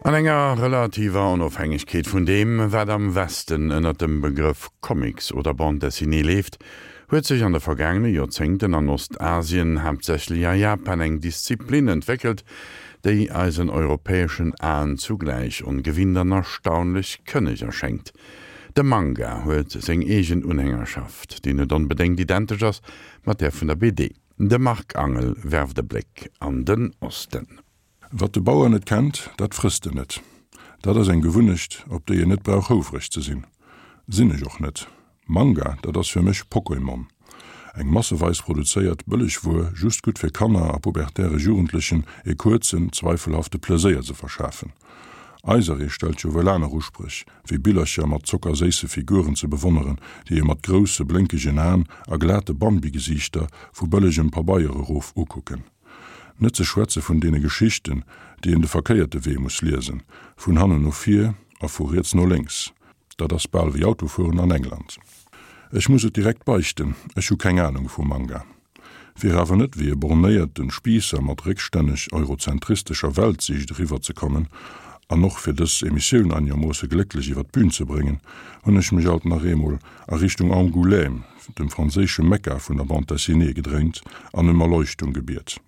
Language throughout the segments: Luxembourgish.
An enger relativer Onofhängegkeet vun deem, wat am Westen ënner dem Begrëff Comics oder Bande dessinée leeft, huet sech an de vergaangene Joerzéngten an Ostasien, haaptsächlech a Japan, eng Disziplin entwéckelt, déi eisen europäeschen Aen zugläich ongewinnt an erstaunlech kënneg erschéngt. De Manga huet seng eegen Unhängerschaft, déi net onbedéngt identesch ass mat där vun der BD. De Marc Angel werft e Bléck an den Osten. Wat de Bauer net kennt, dat frësst en net. Dat ass eng Gewunnecht, op déi een net brauch houfreg ze sinn. Sinn ech och net. Manga, dat ass fir mech Pokémon. Eng masseweis produzéiert bëlleg Wuer, just gutt fir Kanner a pubertäre Jugendlechen e kuerzen, zweifelhafte Pleséier ze verschafen. Eiseree stellt jo wuel aner Uspréch, wéi Billercher mat zockerséisse Figuren ze bewonneren, déi ee mat grousse blénkegen Aen a glate Bambi-Gesiichter vu bëllegem Pabeier erof ukucken. Net ze schwätze vun deene Geschichten, déi een de verkéierte Wee muss liesen, vun hannen no vir a vu riets no lénks. Dat ass bal wéi Autofueren an England. Ech muss et direkt beichten, ech hu keng Anung vu Manga. Fir awer net wéi e bornéierte Spiisser mat réckstänneg eurozentristescher Weltsiicht eriwwer ze kommen, an och fir dës Emissioun einegermoosse glécklech iwwer d'Bün ze bréngen, hunn ech mech alt nach eemol a Richtung Angoulême, dem franséische Mekka vun der Bande dessinée, gedréint an ëm Erleuchtung gebiet.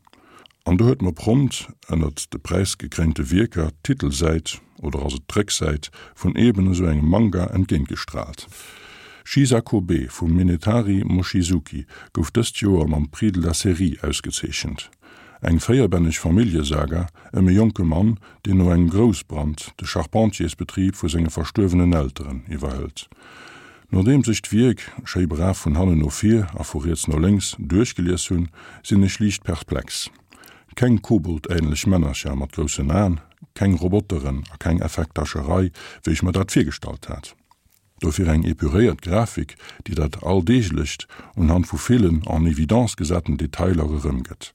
An do huet mer prompt ënnert de präisgekréinte Wierker d'Titelsäit, oder ass et d'Récksäit, vun eben esou engem Manga entgéintgestraalt. Shisakobe vum Minetari Mochizuki gouf dëst Joer mam Prix de la Série ausgezeechent. Eng véierbänneg Familljesaga ëm e jonke Mann, deen no engem Groussbrand de Charpentiersbetrib vu senge verstuerwenen Elteren iwwerhëlt. Nodeems ech d'Wierk, schéi brav vun hannen no vir a vu riets no lénks, duerchgelies hunn, sinn ech liicht perplex. Keng koboldähnlech Männercher mat groussen Aen, keng Roboteren a keng Effekthascherei, wéi ech mer dat virgestallt hat. Dofir eng epuréiert Grafik, déi dat Alldeeglecht unhand vu villen en évidence gesaten Detailer erëmgëtt.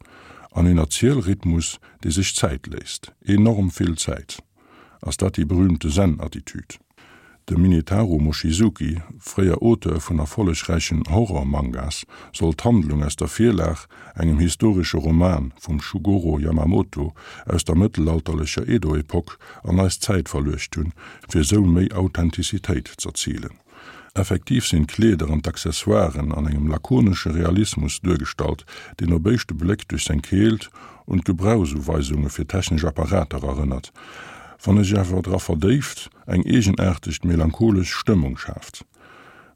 An een Erzielrhythmus, dee sech Zäit léisst. Enorm vill Zäit. Ass dat déi berühmte Zen-Attitüd? De Minetaro Mochizuki, fréier Auteur vun erfollegräichen Horror-Mangas, soll d'Handlung aus der Virlag, engem historesche Roman vum Shugoro Yamamoto aus der mëttelalterlecher Edo-Epoque, an eis Zäit verluecht hunn, fir esou méi Authentizitéit z'erzilen. Effektiv sinn d'Kleeder an d'Accessoiren an engem lakonesche Realismus duergestallt, deen op éischte Bléck duerch seng Keelt un d'Gebrauchsuweisunge fir technesch Apparater erënnert, wann e sech awer dra verdéift, eng eegenaartegt melancholesch Stëmmung schaaft.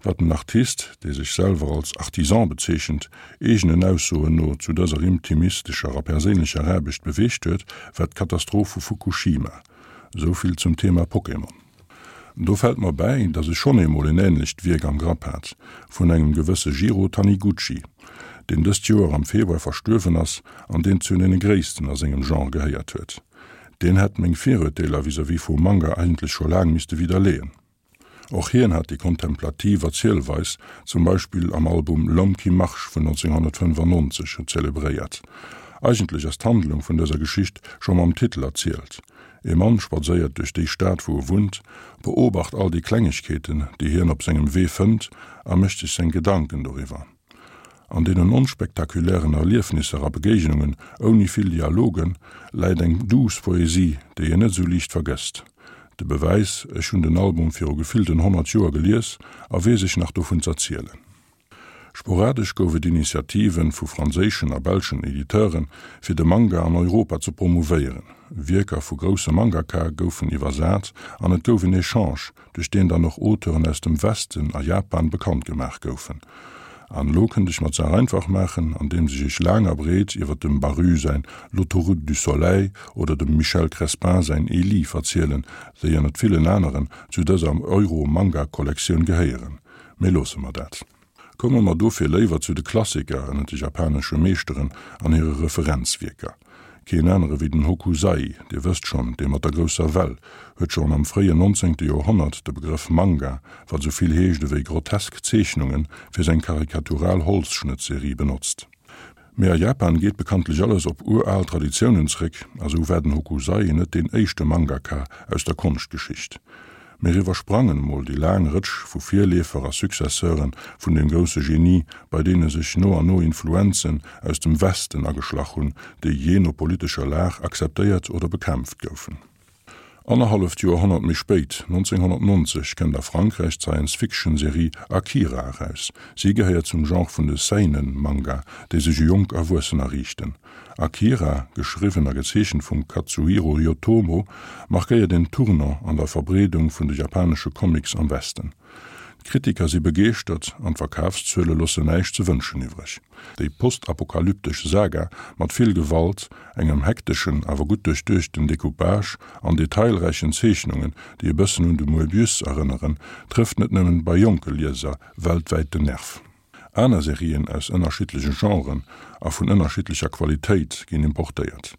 Wat den Artist, dee sech selwer als Artisan bezeechent, eegenen Aussoen no zu dëser intimistescher a perséinlecher Aarbecht beweegt huet, war d'Katastroph vu Fukushima. Esou vill zum Thema Pokémon. Do fält mer bäi, datt ech schonn eemol en änlecht Wierk am Grapp hat, vun engem gewësse Jiro Taniguchi, deen dëst Joer am Februar verstuerwen ass an deen zu deene gréissten a sengem Genre gehéiert huet. Deen hätt meng Virurteeler vis-à-vis vum Manga eigentlech scho laang misste widderleeën. Och hien hat déi kontemplativ Erzielweis, zum Beispill am Album L'homme qui marche vun 1995, zelebréiert. Eigentlech ass d'Handlung vun dëser Geschicht scho mam Titel erzielt. E Mann spadséiert duerch déi Stad wou e wunnt, beobacht all déi Klengegkeeten, déi hien op sengem Wee fënnt a mécht sech seng Gedanken doriwwer. An deenen onspektakulären Erliefnisser a Begéignungen ouni vill Dialogen läit eng duuss Poesie, déi een net esou liicht vergësst. De Bewäis, ech hunn den Album viru gefillten 100 Joer gelies a weess ech nach dovun z'erzielen. Sporadesch gouf et Initiative vu franséischen a belschen Editeuren, fir de Manga an Europa ze promouvéieren. Wierker vu grousse Mangaka goufen iwwersat an et gouf en Echange duerch deen dann och Auteuren aus dem Westen a Japan bekannt gemaach goufen. An elo kënnt ech mer d'Saach einfach maachen, andeems ech iech laang a breet iwwer dem Baru säin L'autoroute du soleil oder dem Michel Crespin säin Elie verzielen, déi ënnert villen aneren zu dëser Euro-Manga-Kollektioun gehéieren. Mee loosse mer dat. Komme mer dofir léiwer zu de Klassiker ënnert de japanesche Meeschteren an hire Referenzwierker. Keen anere wéi den Hokusai, Dir wësst schonn, dee mat der grousser Well, huet schonn am fréien nonzéngte Joerhonnert de Begrëff Manga, wat esou vill heescht ewéi grotesk Zeechnungen, fir seng karikatural Holzschnëttserie benotzt. Mee a Japan geet bekanntlech alles op ural Traditiounen zréck, a sou war den Hokusai net deen éischte Mangaka aus der Konschtgeschicht. Mir iwwersprangen emol déi laang Rëtsch vu Virleefer a Successeure vun deem grousse Genie, bei deene sech no an no Influenzen aus dem Westen ageschlach hunn, déi jee no politescher Lag akzeptéiert oder bekämpft goufen. Annerhalleft Joerhonnert méi spéit, 1990, kënnt a Frankräich d'Science-Fiction-Serie Akira eraus. Si gehéiert zum Genre vun de Seinen-Manga, déi sech u jonk Erwuessener riichten. Akira, geschriwwen a gezeechent vum Katsuhiro Otomo, markéiert en Tournant an der Verbreedung vun de japanesche Comics am Westen. D'Kritiker si begeeschtert an d'Verkafszuele loossen näischt ze wënschen iwwreg. Déi postapokalyptesch Saga mat vill Gewalt, engem hekteschen, awer gutt duerchduechten Decoupage an detailräichen Zeechnungen, déi e bëssen un de Moebius erënneren, trëfft net nëmmen bei jonke Lieser weltwäit den Nerv. Aner Serien aus ënnerschiddleche Genren a vun ënnerschiddlecher Qualitéit ginn importéiert.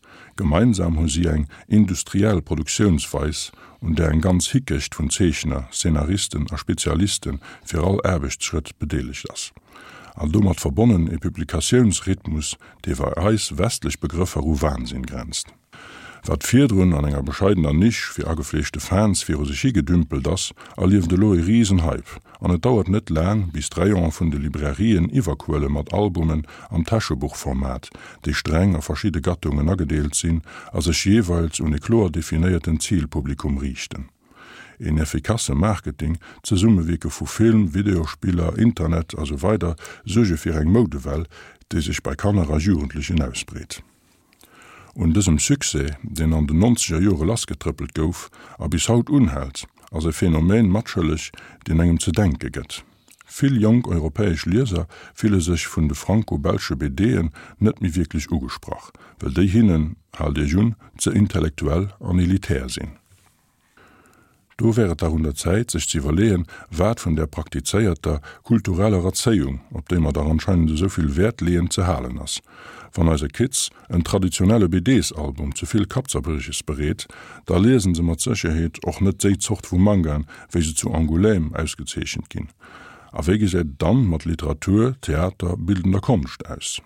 Gemeinsam hu si eng industriell Produktiounsweis, un där eng ganz Hickecht vun Zeechner, Szenaristen a Spezialiste fir all Aarbechtsschrëtt bedeelegt ass. An domat verbonnen e Publikatiounsrhythmus, dee bei eis westlech Begrëffer u Wahnsinn grenzt. Wat virdrun an enger bescheidener Nisch fir agefleeschte Fans viru sech hi gedümpelt ass, erlieft elo e Risenhype an et dauert net laang, bis d'Rayonen vun de Librairien iwwerquëlle mat Albumen am Täschebuchformat, déi streng a verschidde Gattungen agedeelt sinn a sech jeeweils un e kloer definéierten Zilpublikum riichten. Een effikasse Marketing, d'Zesummewierke vu Film, Videospiller, Internet a sou weider suerge fir eng Moudewell, déi sech bei Kanner a Jugendlechen ausbreet. Un dësem Succès, deen an den nonzeger Jore lassgetrëppelt gouf a bis haut unhält, ass e Phänomen matschëlleg, deen engem ze denke gëtt. Vill jonk europäesch Lieser fille sech vun de franco-belsche BDen net méi wierklech ugesprach, well déi hinnen, haalt Iech un, ze intellektuell an elitär sinn. Do wär et dach un der Zäit, sech ze iwwerleeën, wat vun där praktizéierter kultureller Erzéiung, op déi mer dach anscheinend esou vill Wäert leeën, ze halen ass. Wann eise Kids en traditionelle BDs-Album ze vill Kappzerbrieches bereet, da liesen se mat Sécherheet och net déi Zort vu Mangaen, wéi se zu Angoulême ausgezeechent ginn. A wéi gesäit et dann mat Literatur, Theater, bildender Konscht aus?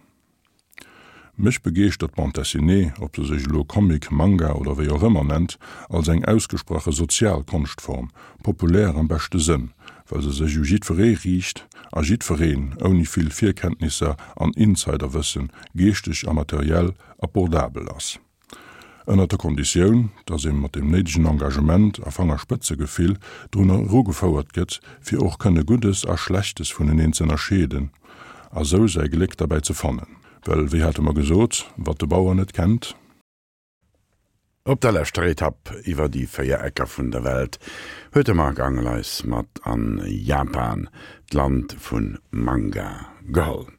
Mech begeeschtert d'Bande dessinée, ob se sech elo Comic, Manga oder wéi och ëmmer nennt, als eng ausgesprache sozial Konschtform, populär am beschte Sënn, well se sech u jiddweree riicht a jiddwereen, ouni vill Virkenntnisser an Insiderwëssen, geeschteg a materiell abordabel ass. Ënnert der Konditioun, datt ee mat deem néidegen Engagement a Fangerspëtzegefill drun erugefouert gëtt, fir och kënne Guddes a Schlechtes vuneneen z'ënnerscheeden a sou säi Gléck derbäi ze fannen. Well, wéi hate mer gesot, wat de Bauer net kennt. Op der leschter Etapp iwwer déi 4 Ecker vun der Welt huet de Marc Angel eis mat an Japan, d'Land vun Manga, geholl.